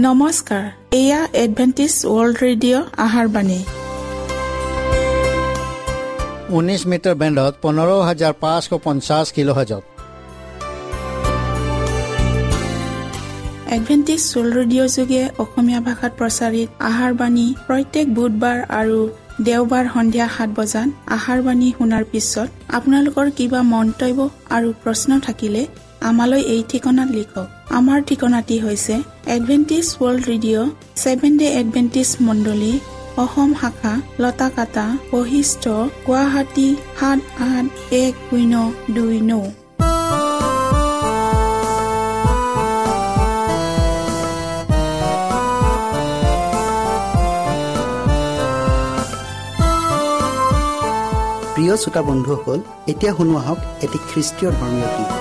নমস্কাৰ, এয়া Adventist world radio' আহাৰ বাণী। 19 মিটাৰ বেণ্ডত 15550 কিলোহাৰ্জত। এডভেণ্টিষ্ট ৱৰ্ল্ড ৰেডিঅ' যোগে অসমীয়া ভাষাত প্ৰচাৰিত আহাৰ বাণী প্ৰত্যেক বুধবাৰ আৰু দেওবাৰ সন্ধিয়া 7 বজাত আহাৰ বাণী শুনাৰ পিছত আপোনালোকৰ কিবা মন্তব্য আৰু প্ৰশ্ন থাকিলে আমালৈ এই ঠিকনাত লিখক। আমাৰ ঠিকনাটি হৈছে Adventist world radio, seven day Adventist মণ্ডলী, অসম শাখা, লতাকাটা, বশিষ্ঠ, গুৱাহাটী 781029। প্ৰিয় শ্ৰোতা বন্ধুসকল, এতিয়া শুনো আহক এটি খ্ৰীষ্টীয় ধৰ্মীয় গীত।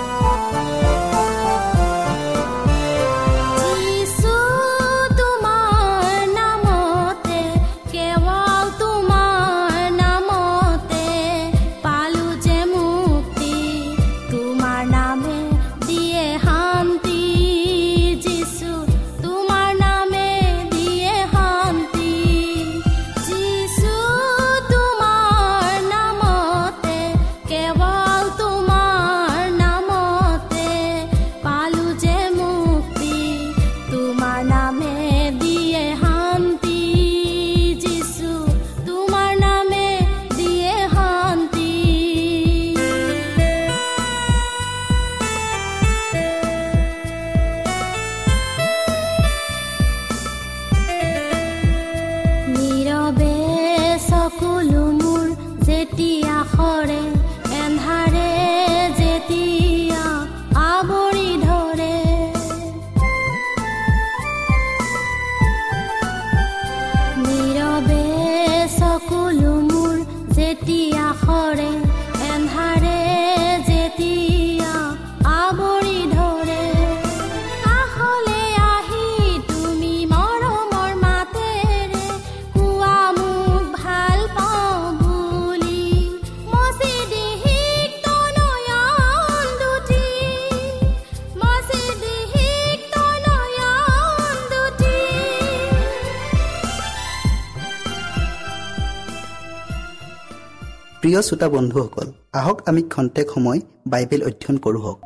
প্ৰিয় শ্ৰোতা বন্ধুসকল, আহক আমি খন্তেক সময় বাইবেল অধ্যয়ন কৰোঁ হওক।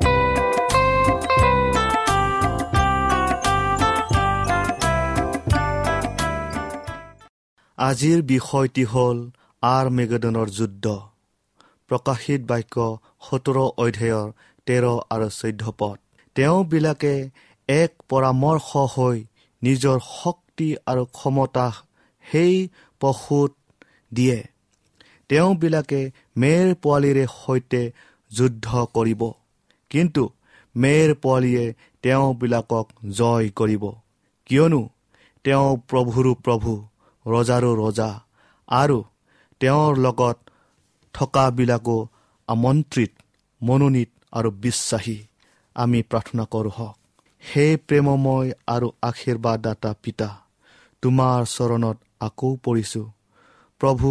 আজিৰ বিষয়টি হ'ল আৰ্মেগেদনৰ যুদ্ধ। প্ৰকাশিত বাক্য 17 অধ্যায়ৰ 13 আৰু 14 পদ। তেওঁবিলাকে এক পৰামৰ্শ হৈ নিজৰ শক্তি আৰু ক্ষমতা সেই পশুত দিয়ে। তেওঁবিলাকে মেৰ পোৱালিৰে সৈতে যুদ্ধ কৰিব, কিন্তু মেৰ পোৱালিয়ে তেওঁবিলাকক জয় কৰিব, কিয়নো তেওঁ প্ৰভুৰো প্ৰভু, ৰজাৰো ৰজা, আৰু তেওঁৰ লগত থকাবিলাকো আমন্ত্ৰিত, মনোনীত আৰু বিশ্বাসী। আমি প্ৰাৰ্থনা কৰোঁ হওক। হে প্ৰেমময় আৰু আশীৰ্বাদদাতা পিতা, তোমাৰ চৰণত আকৌ পৰিছোঁ। প্ৰভু,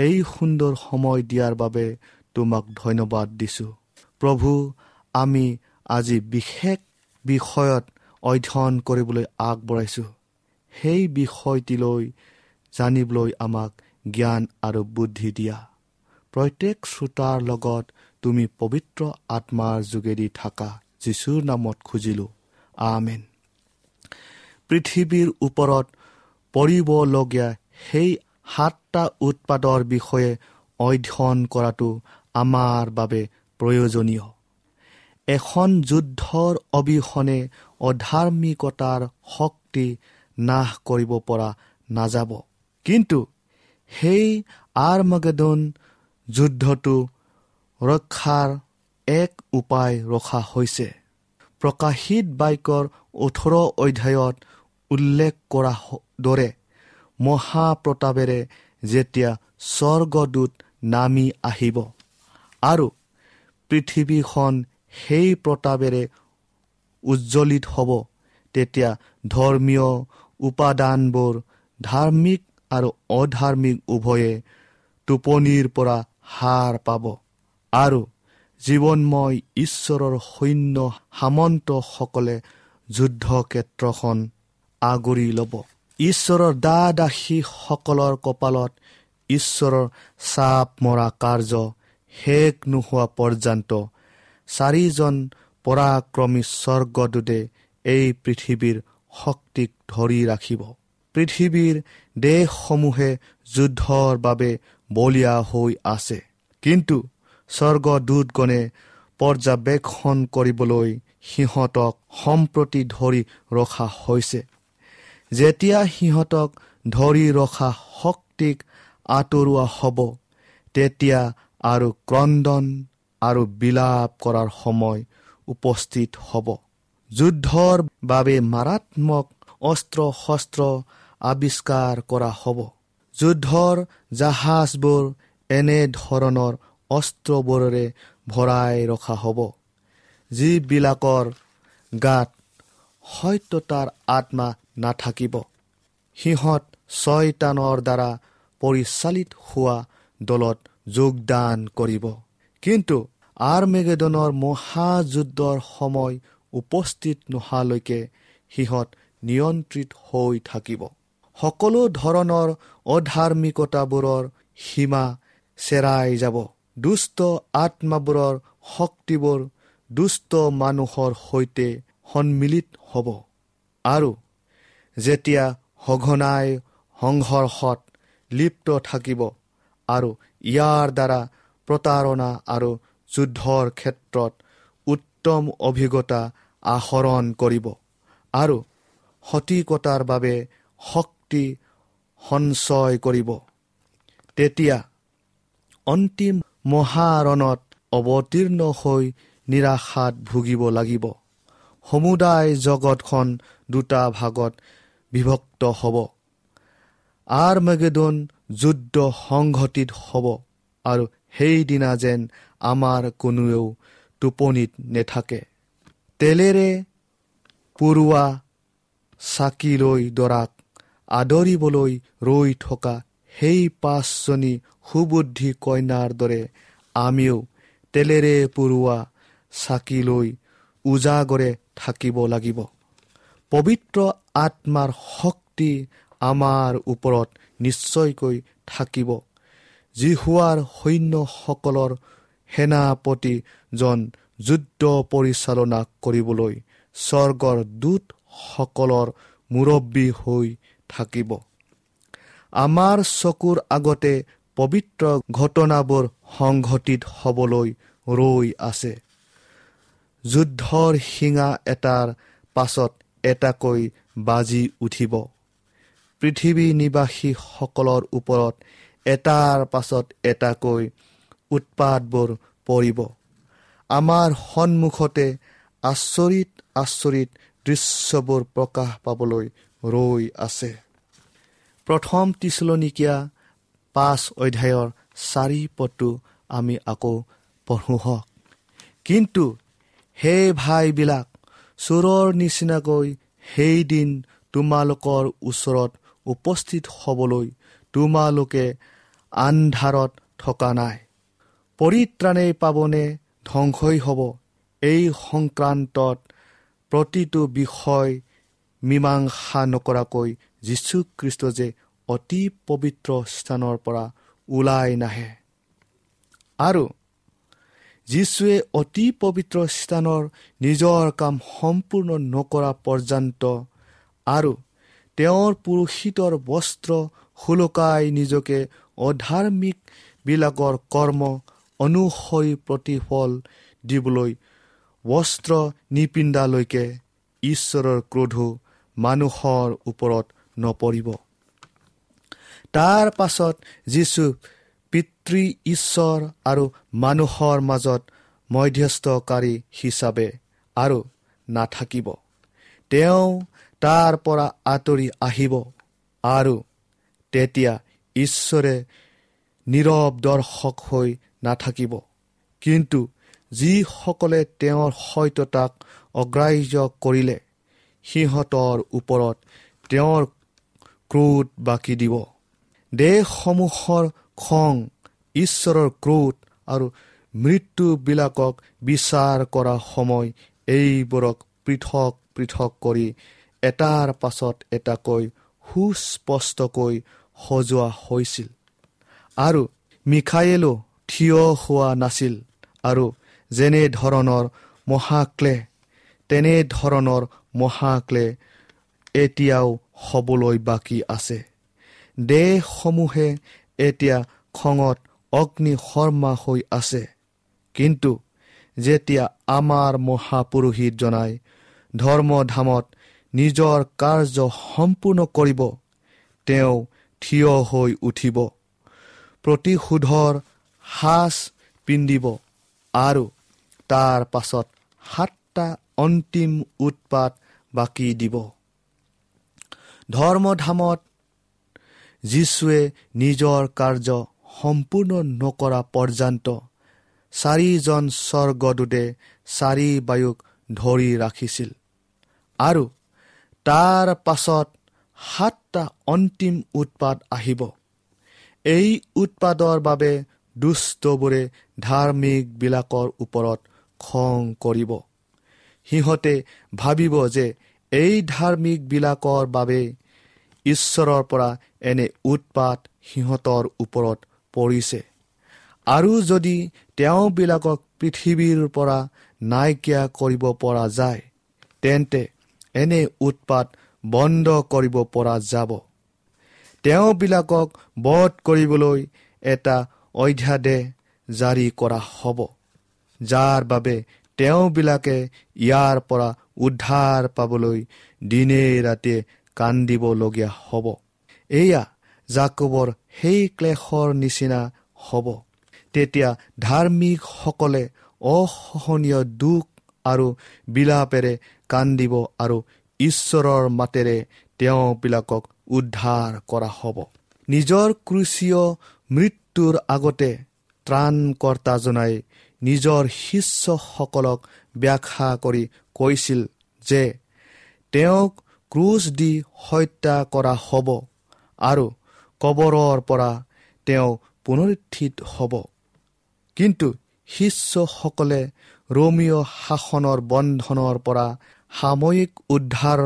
এই সুন্দৰ সময় দিয়াৰ বাবে তোমাক ধন্যবাদ দিছোঁ। প্ৰভু, আমি আজি বিশেষ বিষয়ত অধ্যয়ন কৰিবলৈ আগবঢ়াইছোঁ। সেই বিষয়টিলৈ জানিবলৈ আমাক জ্ঞান আৰু বুদ্ধি দিয়া। প্ৰত্যেক শ্ৰোতাৰ লগত তুমি পবিত্ৰ আত্মাৰ যোগেদি থাকা, যীশুৰ নামত খুজিলোঁ, আমেন। পৃথিৱীৰ ওপৰত পৰিবলগীয়া সেই 7টা উৎপাদৰ বিষয়ে অধ্যয়ন কৰাটো আমাৰ বাবে প্ৰয়োজনীয়। এখন যুদ্ধৰ অবিহনে অধাৰ্মিকতাৰ শক্তি নাশ কৰিব পৰা নাযাব, কিন্তু সেই আৰ্মাগেদন যুদ্ধটো ৰক্ষাৰ এক উপায় ৰখা হৈছে। প্ৰকাশিত বাক্যৰ 18 অধ্যায়ত উল্লেখ কৰা দৰে মহাপ্ৰতাপেৰে যেতিয়া স্বৰ্গদূত নামি আহিব আৰু পৃথিৱীখন সেই প্ৰতাপেৰে উজ্জ্বলিত হ'ব, তেতিয়া ধৰ্মীয় উপাদানবোৰ ধাৰ্মিক আৰু অধাৰ্মিক উভয়ে টোপনিৰ পৰা সাৰ পাব আৰু জীৱনময় ঈশ্বৰৰ সৈন্য সামন্তসকলে যুদ্ধক্ষেত্ৰখন আগুৰি ল'ব। ঈশ্বৰৰ দাস-দাসীসকলৰ কপালত ঈশ্বৰৰ চাপ মৰা কাৰ্য শেষ নোহোৱা পৰ্যন্ত চাৰিজন পৰাক্ৰমী স্বৰ্গদূতে এই পৃথিৱীৰ শক্তিক ধৰি ৰাখিব। পৃথিৱীৰ দেশসমূহে যুদ্ধৰ বাবে বলীয়া হৈ আছে, কিন্তু স্বৰ্গদূতগণে পৰ্যবেক্ষণ কৰিবলৈ সিহঁতক সম্প্ৰতি ধৰি ৰখা হৈছে। যেতিয়া সিহঁতক ধৰি ৰখা শক্তিক আঁতৰোৱা হ'ব, তেতিয়া আৰু ক্ৰন্দন আৰু বিলাপ কৰাৰ সময় উপস্থিত হ'ব। যুদ্ধৰ বাবে মাৰাত্মক অস্ত্ৰ শস্ত্ৰ আৱিষ্কাৰ কৰা হ'ব। যুদ্ধৰ জাহাজবোৰ এনেধৰণৰ অস্ত্ৰবোৰেৰে ভৰাই ৰখা হ'ব, যিবিলাকৰ গাত সত্যতাৰ আত্মা নাথাকিব। সিহঁত ছয়তানৰ দ্বাৰা পৰিচালিত হোৱা দলত যোগদান কৰিব। কিন্তু আৰ্মেগেদনৰ মহাযুদ্ধৰ সময় উপস্থিত নোহোৱালৈকে সিহঁত নিয়ন্ত্ৰিত হৈ থাকিব। সকলো ধৰণৰ অধাৰ্মিকতাবোৰৰ সীমা চেৰাই যাব। দুষ্ট আত্মাবোৰৰ শক্তিবোৰ দুষ্ট মানুহৰ সৈতে সন্মিলিত হ'ব আৰু যেতিয়া সঘনাই সংঘৰ্ষত লিপ্ত থাকিব আৰু ইয়াৰ দ্বাৰা প্ৰতাৰণা আৰু যুদ্ধৰ ক্ষেত্ৰত উত্তম অভিজ্ঞতা আহৰণ কৰিব আৰু সঠিকতাৰ বাবে শক্তি সঞ্চয় কৰিব, তেতিয়া অন্তিম মহাৰণত অৱতীৰ্ণ হৈ নিৰাশাত ভুগিব লাগিব। সমুদায় জগতখন দুটা ভাগত বিভক্ত হ'ব। আৰ্মেগেদন যুদ্ধ সংঘটিত হ'ব আৰু সেইদিনা যেন আমাৰ কোনোৱেও টোপনিত নেথাকে। তেলেৰে পুৰোৱা চাকি লৈ দৰাক আদৰিবলৈ ৰৈ থকা সেই পাঁচজনী সুবুদ্ধি কন্যাৰ দৰে আমিও তেলেৰে পুৰোৱা চাকি লৈ উজাগৰে থাকিব লাগিব। পবিত্ৰ আত্মাৰ শক্তি আমাৰ ওপৰত নিশ্চয়কৈ থাকিব। যিহোৱাৰ সৈন্যসকলৰ সেনাপতিজন যুদ্ধ পৰিচালনা কৰিবলৈ স্বৰ্গৰ দূতসকলৰ মুৰব্বী হৈ থাকিব। আমাৰ চকুৰ আগতে পবিত্ৰ ঘটনাবোৰ সংঘটিত হ'বলৈ ৰৈ আছে। যুদ্ধৰ শিঙা এটাৰ পাছত এটাকৈ বাজি উঠিব। পৃথিৱী নিবাসীসকলৰ ওপৰত এটাৰ পাছত এটাকৈ উৎপাতবোৰ পৰিব। আমাৰ সন্মুখতে আচৰিত আচৰিত দৃশ্যবোৰ প্ৰকাশ পাবলৈ ৰৈ আছে। প্ৰথম থিচলনীকীয়া 5 অধ্যায়ৰ 4 পদটো আমি আকৌ পঢ়োঁ হওক। কিন্তু হে ভাইবিলাক, চোৰৰ নিচিনাকৈ সেইদিন তোমালোকৰ ওচৰত উপস্থিত হ'বলৈ তোমালোকে আন্ধাৰত থকা নাই। পৰিত্ৰাণেই পাবনে ধ্বংসই হ'ব, এই সংক্ৰান্তত প্ৰতিটো বিষয় মীমাংসা নকৰাকৈ যীশুখ্ৰীষ্ট যে অতি পবিত্ৰ স্থানৰ পৰা ওলাই নাহে আৰু যীশুৱে অতি পবিত্ৰ স্থানৰ নিজৰ কাম সম্পূৰ্ণ নকৰা পৰ্যন্ত আৰু তেওঁৰ পুৰোহিতৰ বস্ত্ৰ সুলকাই নিজকে অধাৰ্মিকবিলাকৰ কৰ্ম অনুসৰি প্ৰতিফল দিবলৈ বস্ত্ৰ নিপিন্ধালৈকে ঈশ্বৰৰ ক্ৰোধ মানুহৰ ওপৰত নপৰিব। তাৰ পাছত যীশু পিতৃ ঈশ্বৰ আৰু মানুহৰ মাজত মধ্যস্থকাৰী হিচাপে আৰু নাথাকিব। তেওঁ তাৰ পৰা আঁতৰি আহিব আৰু তেতিয়া ঈশ্বৰে নীৰৱ দৰ্শক হৈ নাথাকিব, কিন্তু যিসকলে তেওঁৰ সত্যতাক অগ্ৰাহ্য কৰিলে সিহঁতৰ ওপৰত তেওঁৰ ক্ৰোধ বাকি দিব। দেশসমূহৰ খং, ঈশ্বৰৰ ক্ৰোধ আৰু মৃত্যুবিলাকক বিচাৰ কৰা সময় এইবোৰক পৃথক পৃথক কৰি এটাৰ পাছত এটাকৈ সুস্পষ্টকৈ সজোৱা হৈছিল আৰু মিখায়েলো থিয় হোৱা নাছিল আৰু যেনেধৰণৰ মহাক্লেশ তেনেধৰণৰ মহাক্লেশ এতিয়াও হ'বলৈ বাকী আছে। দেশসমূহে এতিয়া খঙত অগ্নিশৰ্মা হৈ আছে, কিন্তু যেতিয়া আমাৰ মহাপুৰোহিতজনাই ধৰ্মধামত নিজৰ কাৰ্য সম্পূৰ্ণ কৰিব, তেওঁ থিয় হৈ উঠিব, প্ৰতিশোধৰ সাজ পিন্ধিব আৰু তাৰ পাছত 7টা অন্তিম উৎপাত বাকী দিব। ধৰ্মধামত যীশুৱে নিজৰ কাৰ্য সম্পূৰ্ণ নকৰা পৰ্যন্ত 4জন স্বৰ্গদূতে 4 বায়ুক ধৰি ৰাখিছিল আৰু তাৰ পাছত 7টা অন্তিম উৎপাত আহিব। এই উৎপাতৰ বাবে দুষ্টবোৰে ধাৰ্মিকবিলাকৰ ওপৰত খং কৰিব। সিহঁতে ভাবিব যে এই ধাৰ্মিকবিলাকৰ বাবে ঈশ্বৰৰ পৰা এনে উৎপাত সিহঁতৰ ওপৰত পৰিছে আৰু যদি তেওঁবিলাকক পৃথিৱীৰ পৰা নাইকিয়া কৰিব পৰা যায়, তেন্তে এনে উৎপাত বন্ধ কৰিব পৰা যাব। তেওঁবিলাকক বধ কৰিবলৈ এটা অধ্যাদেশ জাৰি কৰা হ'ব, যাৰ বাবে তেওঁবিলাকে ইয়াৰ পৰা উদ্ধাৰ পাবলৈ দিনে ৰাতিয়ে কান্দিবলগীয়া হ'ব। এয়া জাকোবৰ সেই ক্লেশৰ নিচিনা হ'ব। তেতিয়া ধাৰ্মিকসকলে অসহনীয় দুখ আৰু বিলাপেৰে কান্দিব আৰু ঈশ্বৰৰ মাতেৰে তেওঁবিলাকক উদ্ধাৰ কৰা হ'ব। নিজৰ ক্ৰুচীয় মৃত্যুৰ আগতে ত্ৰাণকৰ্তাজনাই নিজৰ শিষ্যসকলক ব্যাখ্যা কৰি কৈছিল যে তেওঁক ক্ৰুচ দি হত্যা কৰা হ'ব আৰু কবৰৰ পৰা তেওঁ পুনৰুত্থিত হ'ব। কিন্তু শিষ্যসকলে ৰোমীয় শাসনৰ বন্ধনৰ পৰা সাময়িক উদ্ধাৰ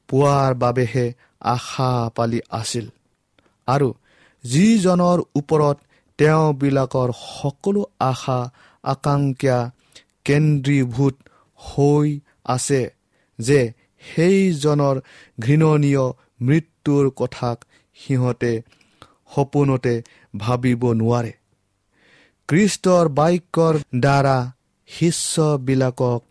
পোৱাৰ বাবেহে আশা পালি আছিল আৰু যিজনৰ ওপৰত তেওঁবিলাকৰ সকলো আশা আকাংক্ষা কেন্দ্ৰীভূত হৈ আছে, যে সেইজনৰ ঘৃণনীয় মৃত্যুৰ কথাক সিহঁতে সপোনতে ভাবিব নোৱাৰে। খ্ৰীষ্টৰ বাক্যৰ দ্বাৰা শিষ্যবিলাকক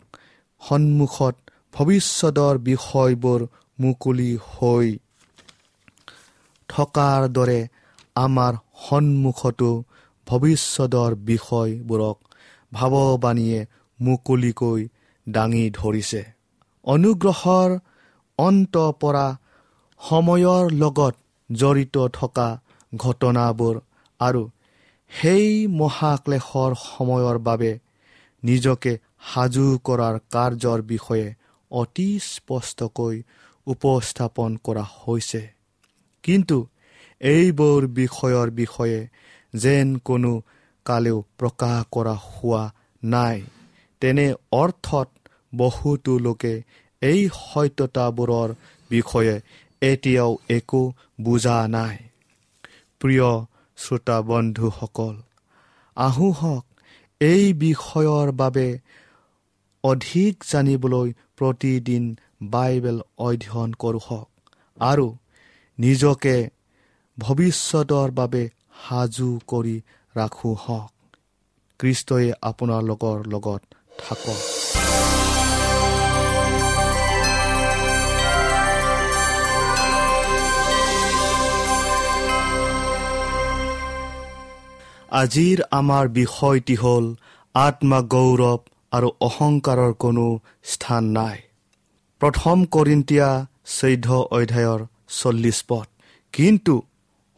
সন্মুখত ভৱিষ্যতৰ বিষয়বোৰ মুকলি হৈ থকাৰ দৰে আমাৰ সন্মুখতো ভৱিষ্যতৰ বিষয়বোৰক ভাৱবাণীয়ে মুকলিকৈ দাঙি ধৰিছে। অনুগ্ৰহৰ অন্ত পৰা সময়ৰ লগত জড়িত থকা ঘটনাবোৰ আৰু সেই মহাক্লেশৰ সময়ৰ বাবে নিজকে সাজু কৰাৰ কাৰ্যৰ বিষয়ে অতি স্পষ্টকৈ উপস্থাপন কৰা হৈছে। কিন্তু এইবোৰ বিষয়ৰ বিষয়ে যেন কোনো কালেও প্ৰকাশ কৰা হোৱা নাই, তেনে অৰ্থত বহুতো লোকে এই সত্যতাবোৰৰ বিষয়ে এতিয়াও একো বুজা নাই। প্ৰিয় শ্ৰোতা বন্ধুসকল, আহোঁহক এই বিষয়ৰ বাবে অধিক জানিবলৈ প্ৰতিদিন বাইবেল অধ্যয়ন কৰোঁহক আৰু নিজকে ভৱিষ্যতৰ বাবে সাজু কৰি ৰাখোঁহক। খ্ৰীষ্টই আপোনালোকৰ লগত থাকক। আজিৰ আমাৰ বিষয়টি হ'ল আত্মা গৌৰৱ আৰু অহংকাৰৰ কোনো স্থান নাই। প্ৰথম কৰিন্তীয়া 14 অধ্যায়ৰ 40 পদ। কিন্তু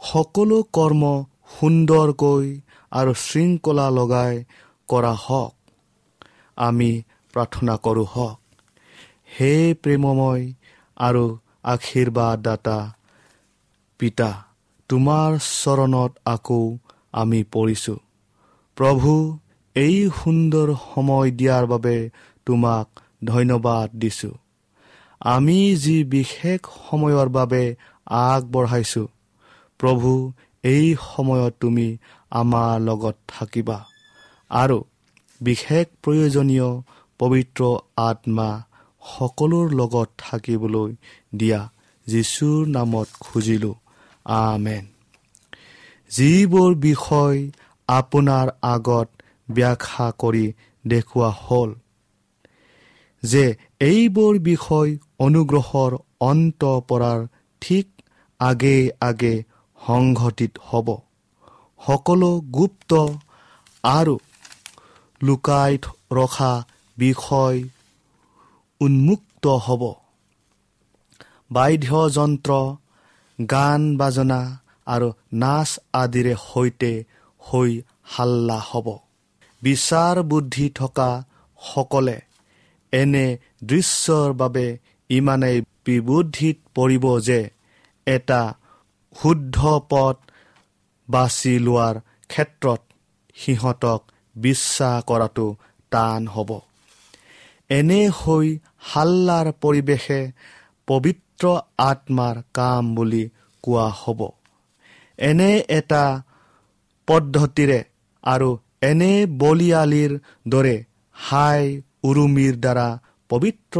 সকলো কৰ্ম সুন্দৰকৈ আৰু শৃংখলা লগাই কৰা হওক। আমি প্ৰাৰ্থনা কৰোঁ হওক। হে প্ৰেমময় আৰু আশীৰ্বাদদাতা পিতা, তোমাৰ চৰণত আকৌ আমি পৰিছোঁ। প্ৰভু, এই সুন্দৰ সময় দিয়াৰ বাবে তোমাক ধন্যবাদ দিছোঁ। আমি যি বিশেষ সময়ৰ বাবে আগবঢ়াইছোঁ, প্ৰভু এই সময়ত তুমি আমাৰ লগত থাকিবা আৰু বিশেষ প্ৰয়োজনীয় পবিত্ৰ আত্মা সকলোৰ লগত থাকিবলৈ দিয়া, যীশুৰ নামত খুজিলোঁ, আমেন। যিবোৰ বিষয় আপোনাৰ আগত ব্যাখ্যা কৰি দেখুওৱা হ'ল যে এইবোৰ বিষয় অনুগ্ৰহৰ অন্ত পৰাৰ ঠিক আগে আগে সংঘটিত হ'ব, সকলো গুপ্ত আৰু লুকাই ৰখা বিষয় উন্মুক্ত হ'ব। বাদ্যযন্ত্ৰ, গান বাজনা আৰু নাচ আদিৰে সৈতে হৈ হাল্লা হ'ব। বিচাৰ বুদ্ধি থকা সকলে এনে দৃশ্যৰ বাবে ইমানেই বিবুদ্ধিত পৰিব যে এটা শুদ্ধ পথ বাছি লোৱাৰ ক্ষেত্ৰত সিহঁতক বিশ্বাস কৰাটো টান হ'ব। এনে হৈ হাল্লাৰ পৰিৱেশে পবিত্ৰ আত্মাৰ কাম বুলি কোৱা হ'ব। এনে এটা পদ্ধতিৰে আৰু এনে বলিয়ালিৰ দৰে হাই উৰুমিৰ দ্বাৰা পবিত্ৰ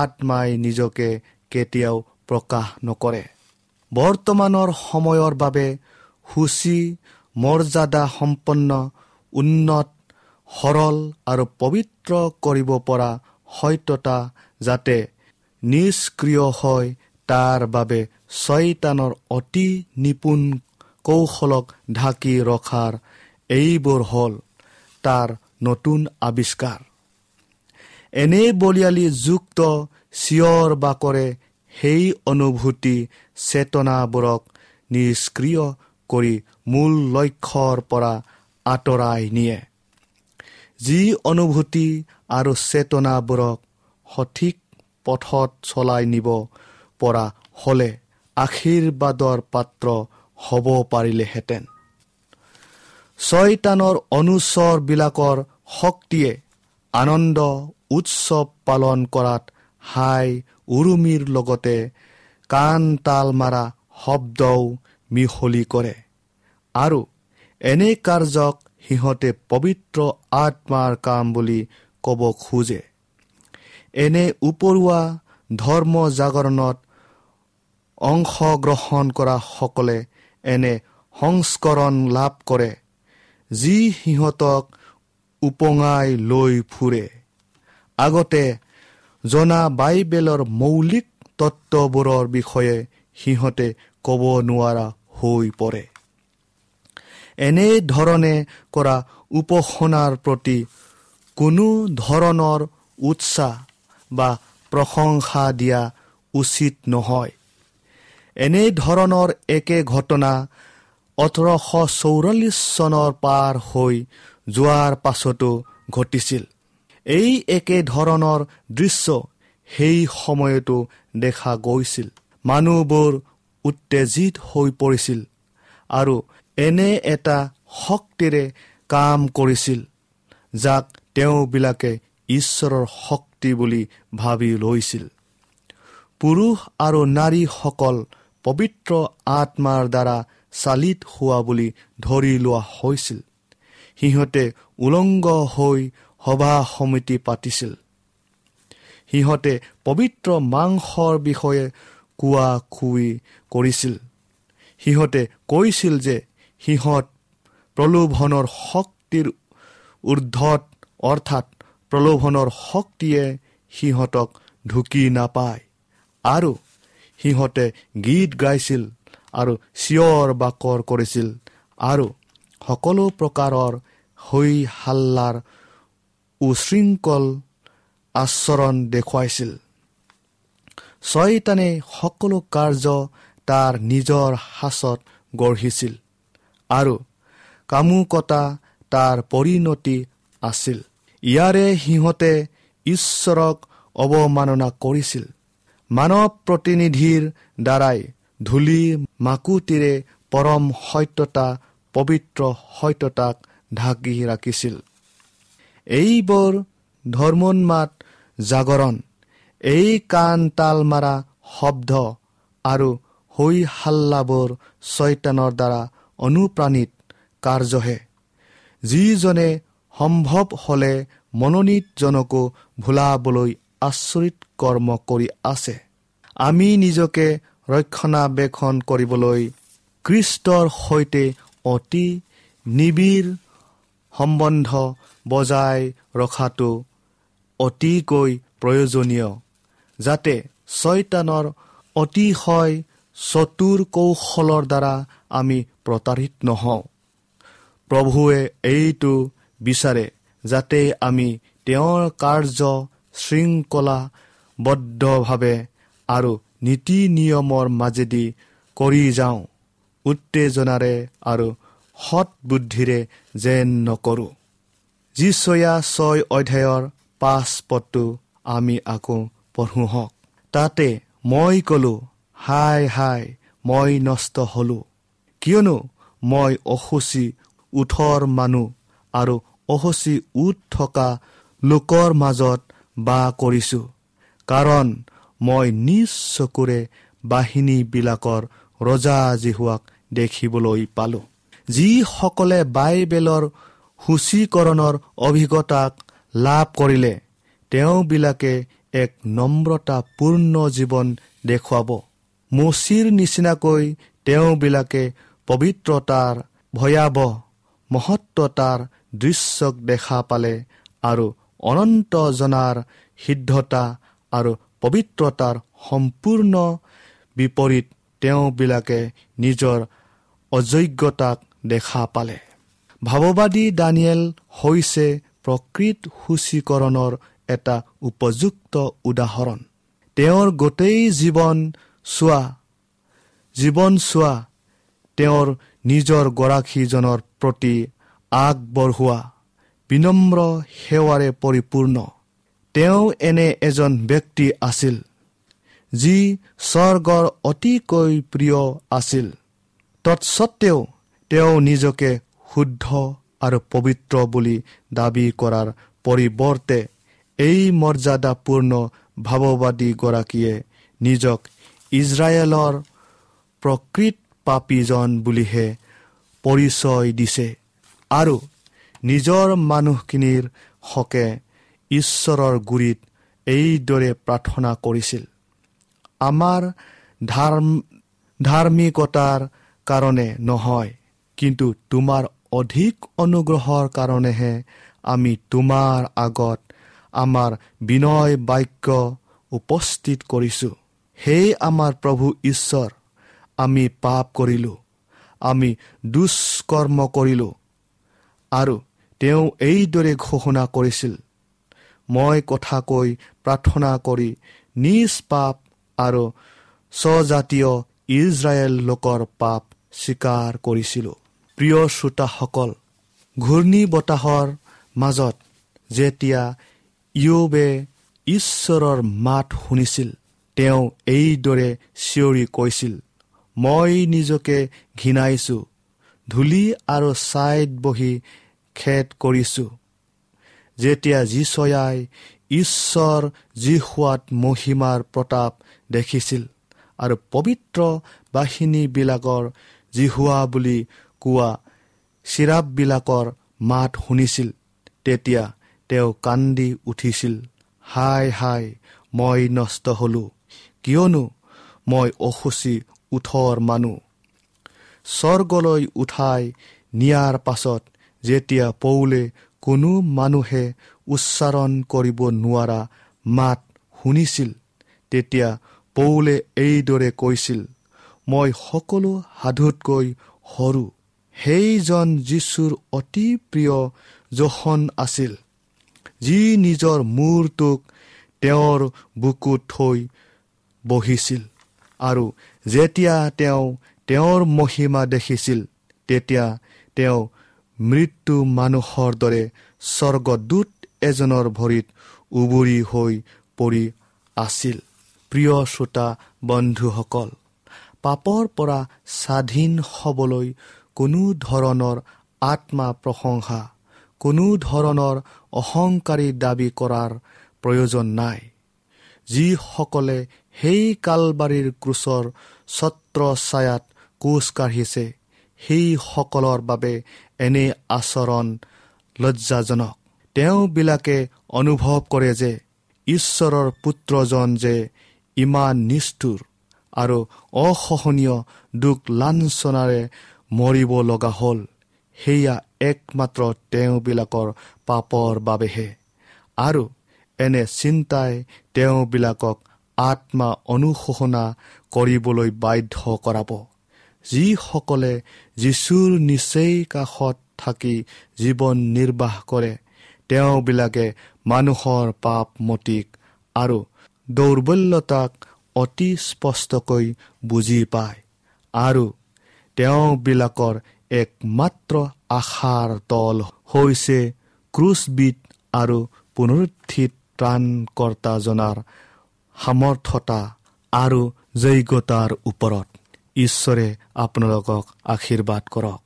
আত্মাই নিজকে কেতিয়াও প্ৰকাশ নকৰে। বৰ্তমানৰ সময়ৰ বাবে সূচী, মৰ্যাদা সম্পন্ন, উন্নত, সৰল আৰু পবিত্ৰ কৰিব পৰা সত্যতা যাতে নিষ্ক্ৰিয় হয়, তাৰ বাবে চয়তানৰ অতি নিপুণ কৌশলক ঢাকি ৰখাৰ এইবোৰ হ'ল তাৰ নতুন আৱিষ্কাৰ। এনে বলিয়ালি যুক্ত চিঞৰ বাকৰে সেই অনুভূতি চেতনাবোৰক নিষ্ক্ৰিয় কৰি মূল লক্ষ্যৰ পৰা আঁতৰাই নিয়ে। যি অনুভূতি আৰু চেতনাবোৰক সঠিক পথত চলাই নিব পৰা হ'লে আশীৰ্বাদৰ পাত্ৰ হ'ব পাৰিলেহেঁতেন। চয়তানৰ অনুচৰবিলাকৰ শক্তিয়ে আনন্দ উৎসৱ পালন কৰাত হাই উৰুমিৰ লগতে কাণ তাল মাৰা শব্দও মিহলি কৰে আৰু এনে কাৰ্যক সিহঁতে পবিত্ৰ আত্মাৰ কাম বুলি ক'ব খোজে। এনে উপৰুৱা ধৰ্ম জাগৰণত অংশগ্ৰহণ কৰাসকলে এনে সংস্কৰণ লাভ কৰে যি সিহঁতক উপঙাই লৈ ফুৰে। আগতে জনা বাইবেলৰ মৌলিক তত্ত্ববোৰৰ বিষয়ে সিহঁতে ক'ব নোৱাৰা হৈ পৰে। এনেধৰণে কৰা উপাসনাৰ প্ৰতি কোনো ধৰণৰ উৎসাহ বা প্ৰশংসা দিয়া উচিত নহয়। এনেধৰণৰ একে ঘটনা 1844 চনৰ পাৰ হৈ যোৱাৰ পাছতো ঘটিছিল। এই একে ধৰণৰ দৃশ্য সেই সময়তো দেখা গৈছিল। মানুহবোৰ উত্তেজিত হৈ পৰিছিল আৰু এনে এটা শক্তিৰে কাম কৰিছিল যাক তেওঁবিলাকে ঈশ্বৰৰ শক্তি বুলি ভাবি লৈছিল। পুৰুষ আৰু নাৰীসকল পবিত্ৰ আত্মাৰ দ্বাৰা চালিত হোৱা বুলি ধৰি লোৱা হৈছিল। সিহঁতে উলংগ হৈ সভা সমিতি পাতিছিল। সিহঁতে পবিত্ৰ মাংসৰ বিষয়ে কোৱা কুই কৰিছিল। সিহঁতে কৈছিল যে সিহঁত প্ৰলোভনৰ শক্তিৰ ঊৰ্ধত, অৰ্থাৎ প্ৰলোভনৰ শক্তিয়ে সিহঁতক ঢুকি নাপায়, আৰু সিহঁতে গীত গাইছিল আৰু চিঞৰ বাকৰ কৰিছিল আৰু সকলো প্ৰকাৰৰ হৈ হাল্লাৰ উশৃংখল আচৰণ দেখুৱাইছিল। চয়তানে সকলো কাৰ্য তাৰ নিজৰ সাঁচত গঢ়িছিল আৰু কামুকতা তাৰ পৰিণতি আছিল। ইয়াৰে সিহঁতে ঈশ্বৰক অৱমাননা কৰিছিল। মানৱ প্ৰতিনিধিৰ দ্বাৰাই ধূলি মাকুতিৰে পৰম সত্যতা, পবিত্ৰ সত্যতাক ঢাকি ৰাখিছিল। এইবোৰ ধৰ্মোন্মাদ জাগৰণ এই কাণ তাল মাৰা শব্দ আৰু হৈ হাল্লাবোৰ ছয়তানৰ দ্বাৰা অনুপ্ৰাণিত কাৰ্যহে, যিজনে সম্ভৱ হ'লে মনোনীতজনকো ভুলাবলৈ আচৰিত কৰ্ম কৰি আছে। আমি নিজকে ৰক্ষণাবেক্ষণ কৰিবলৈ খ্ৰীষ্টৰ সৈতে অতি নিবিড় সম্বন্ধ বজাই ৰখাটো অতিকৈ প্ৰয়োজনীয়, যাতে ছয়তানৰ অতিশয় চতুৰ কৌশলৰ দ্বাৰা আমি প্ৰতাৰিত নহওঁ। প্ৰভুৱে এইটো বিচাৰে যাতে আমি তেওঁৰ কাৰ্য শৃংখলাবদ্ধভাৱে আৰু নীতি নিয়মৰ মাজেদি কৰি যাওঁ, উত্তেজনাৰে আৰু সৎবুদ্ধিৰে যেন নকৰোঁ। যিচয়া 6 অধ্যায়ৰ 5 পদটো আমি আকৌ পঢ়োঁ হওক। তাতে মই ক'লোঁ, হায় হায়, মই নষ্ট হ'লোঁ, কিয়নো মই অশুচি ওঁঠৰ মানুহ আৰু অশুচি ওঁঠ থকা লোকৰ মাজত বাস কৰিছোঁ, কাৰণ মই নিজ চকুৰে বাহিনীবিলাকৰ ৰজা যিহোৱাক দেখিবলৈ পালোঁ। যিসকলে বাইবেলৰ সূচীকৰণৰ অভিজ্ঞতাক লাভ কৰিলে, তেওঁবিলাকে এক নম্ৰতাপূৰ্ণ জীৱন দেখুৱাব। মোচিৰ নিচিনাকৈ তেওঁবিলাকে পবিত্ৰতাৰ ভয়াৱহ মহত্বতাৰ দৃশ্যক দেখা পালে আৰু অনন্ত জনাৰ সিদ্ধতা আৰু পবিত্ৰতাৰ সম্পূৰ্ণ বিপৰীত তেওঁবিলাকে নিজৰ অযোগ্যতাক দেখা পালে। ভাৱবাদী দানিয়েল হৈছে প্ৰকৃত সূচীকৰণৰ এটা উপযুক্ত উদাহৰণ। তেওঁৰ গোটেই জীৱন চোৱা তেওঁৰ নিজৰ গৰাকীজনৰ প্ৰতি আগবঢ়োৱা বিনম্ৰ সেৱাৰে পৰিপূৰ্ণ। তেওঁ এনে এজন ব্যক্তি আছিল যি স্বৰ্গৰ অতিকৈ প্ৰিয় আছিল। তৎসত্বেও তেওঁ নিজকে শুদ্ধ আৰু পবিত্ৰ বুলি দাবী কৰাৰ পৰিৱৰ্তে এই মৰ্যাদাপূৰ্ণ ভাৱবাদীগৰাকীয়ে নিজক ইজৰাইলৰ প্ৰকৃত পাপীজন বুলিহে পৰিচয় দিছে আৰু নিজৰ মানুহখিনিৰ হকে ঈশ্বৰৰ গুৰিত এইদৰে প্ৰাৰ্থনা কৰিছিল, আমাৰ ধাৰ্মিকতাৰ কাৰণে নহয়, কিন্তু তোমাৰ অধিক অনুগ্ৰহৰ কাৰণেহে আমি তোমাৰ আগত আমাৰ বিনয় বাক্য উপস্থিত কৰিছোঁ। হে আমাৰ প্ৰভু ঈশ্বৰ, আমি পাপ কৰিলোঁ, আমি দুষ্কৰ্ম কৰিলোঁ। আৰু তেওঁ এইদৰে ঘোষণা কৰিছিল, মই কথা কৈ প্ৰাৰ্থনা কৰি নিজ পাপ আৰু স্বজাতীয় ইজৰাইল লোকৰ পাপ স্বীকাৰ কৰিছিলোঁ। প্ৰিয় শ্ৰোতাসকল, ঘূৰ্ণী বতাহৰ মাজত যেতিয়া ইয়োবে ঈশ্বৰৰ মাত শুনিছিল, তেওঁ এইদৰে চিঞৰি কৈছিল, মই নিজকে ঘৃণাইছোঁ, ধূলি আৰু ছাইত বহি খেদ কৰিছোঁ। যেতিয়া যিচয়াই ঈশ্বৰ যিহোৱাত মহিমাৰ প্ৰতাপ দেখিছিল আৰু পবিত্ৰ বাহিনীবিলাকৰ যিহোৱা বুলি কোৱা চিৰাপবিলাকৰ মাত শুনিছিল, তেতিয়া তেওঁ কান্দি উঠিছিল, হায় হায়, মই নষ্ট হ'লোঁ, কিয়নো মই অশুচি ওঁঠৰ মানুহ। স্বৰ্গলৈ উঠাই নিয়াৰ পাছত যেতিয়া পৌলে কোনো মানুহে উচ্চাৰণ কৰিব নোৱাৰা মাত শুনিছিল, তেতিয়া পৌলে এইদৰে কৈছিল, মই সকলো সাধুতকৈ সৰু। সেইজন যীশুৰ অতি প্ৰিয় যোহন আছিল, যি নিজৰ মূৰটোক তেওঁৰ বুকুত থৈ বহিছিল আৰু যেতিয়া তেওঁ তেওঁৰ মহিমা দেখিছিল, তেতিয়া তেওঁ মৃত্যু মানুহৰ দৰে স্বৰ্গদূত এজনৰ ভৰিত উবুৰি হৈ পৰি আছিল। প্ৰিয় শ্ৰোতা বন্ধুসকল, পাপৰ পৰা স্বাধীন হ'বলৈ কোনো ধৰণৰ আত্মা প্ৰশংসা, কোনো ধৰণৰ অহংকাৰী দাবী কৰাৰ প্ৰয়োজন নাই। যিসকলে সেই কালবাৰীৰ ক্ৰুচৰ ছত্ৰ ছায়াত কোচ কাঢ়িছে, সেইসকলৰ বাবে এনে আচৰণ লজ্জাজনক। তেওঁবিলাকে অনুভৱ কৰে যে ঈশ্বৰৰ পুত্ৰজন যে ইমান নিষ্ঠুৰ আৰু অসহনীয় দুখ লাঞ্ছনাৰে মৰিব লগা হ'ল, সেয়া একমাত্ৰ তেওঁবিলাকৰ পাপৰ বাবেহে। আৰু এনে চিন্তাই তেওঁবিলাকক আত্মা অনুশোচনা কৰিবলৈ বাধ্য কৰাব। যিসকলে যীশুৰ নিচেই কাষত থাকি জীৱন নিৰ্বাহ কৰে, তেওঁবিলাকে মানুহৰ পাপ মতিক আৰু দৌৰ্বল্যতাক অতি স্পষ্টকৈ বুজি পায় আৰু তেওঁবিলাকৰ একমাত্ৰ আশাৰ তল হৈছে ক্ৰুচবিধ আৰু পুনৰুত্থিত ত্ৰাণকৰ্তাজনাৰ সামৰ্থ্যতা আৰু যোগ্যতাৰ ওপৰত। ঈশ্বৰে আপোনালোকক আশীৰ্বাদ কৰক।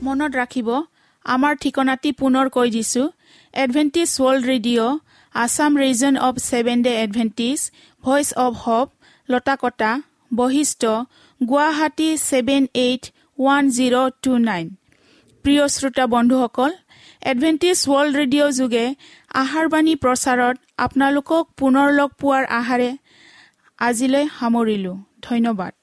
মনত ৰাখিব, আমাৰ ঠিকনাটি পুনৰ কৈ দিছো। Adventist World Radio, Assam Region of Seven Day Adventist, Voice of Hope, Latakata, Basistha, Guwahati 781029। প্ৰিয় শ্ৰোতা বন্ধুসকল, এডভেণ্টিষ্ট ৱৰ্ল্ড ৰেডিঅ' যোগে আহাৰবাণী প্ৰচাৰত আপোনালোকক পুনৰ লগ পোৱাৰ আশাৰে আজিলৈ সামৰিলোঁ। ধন্যবাদ।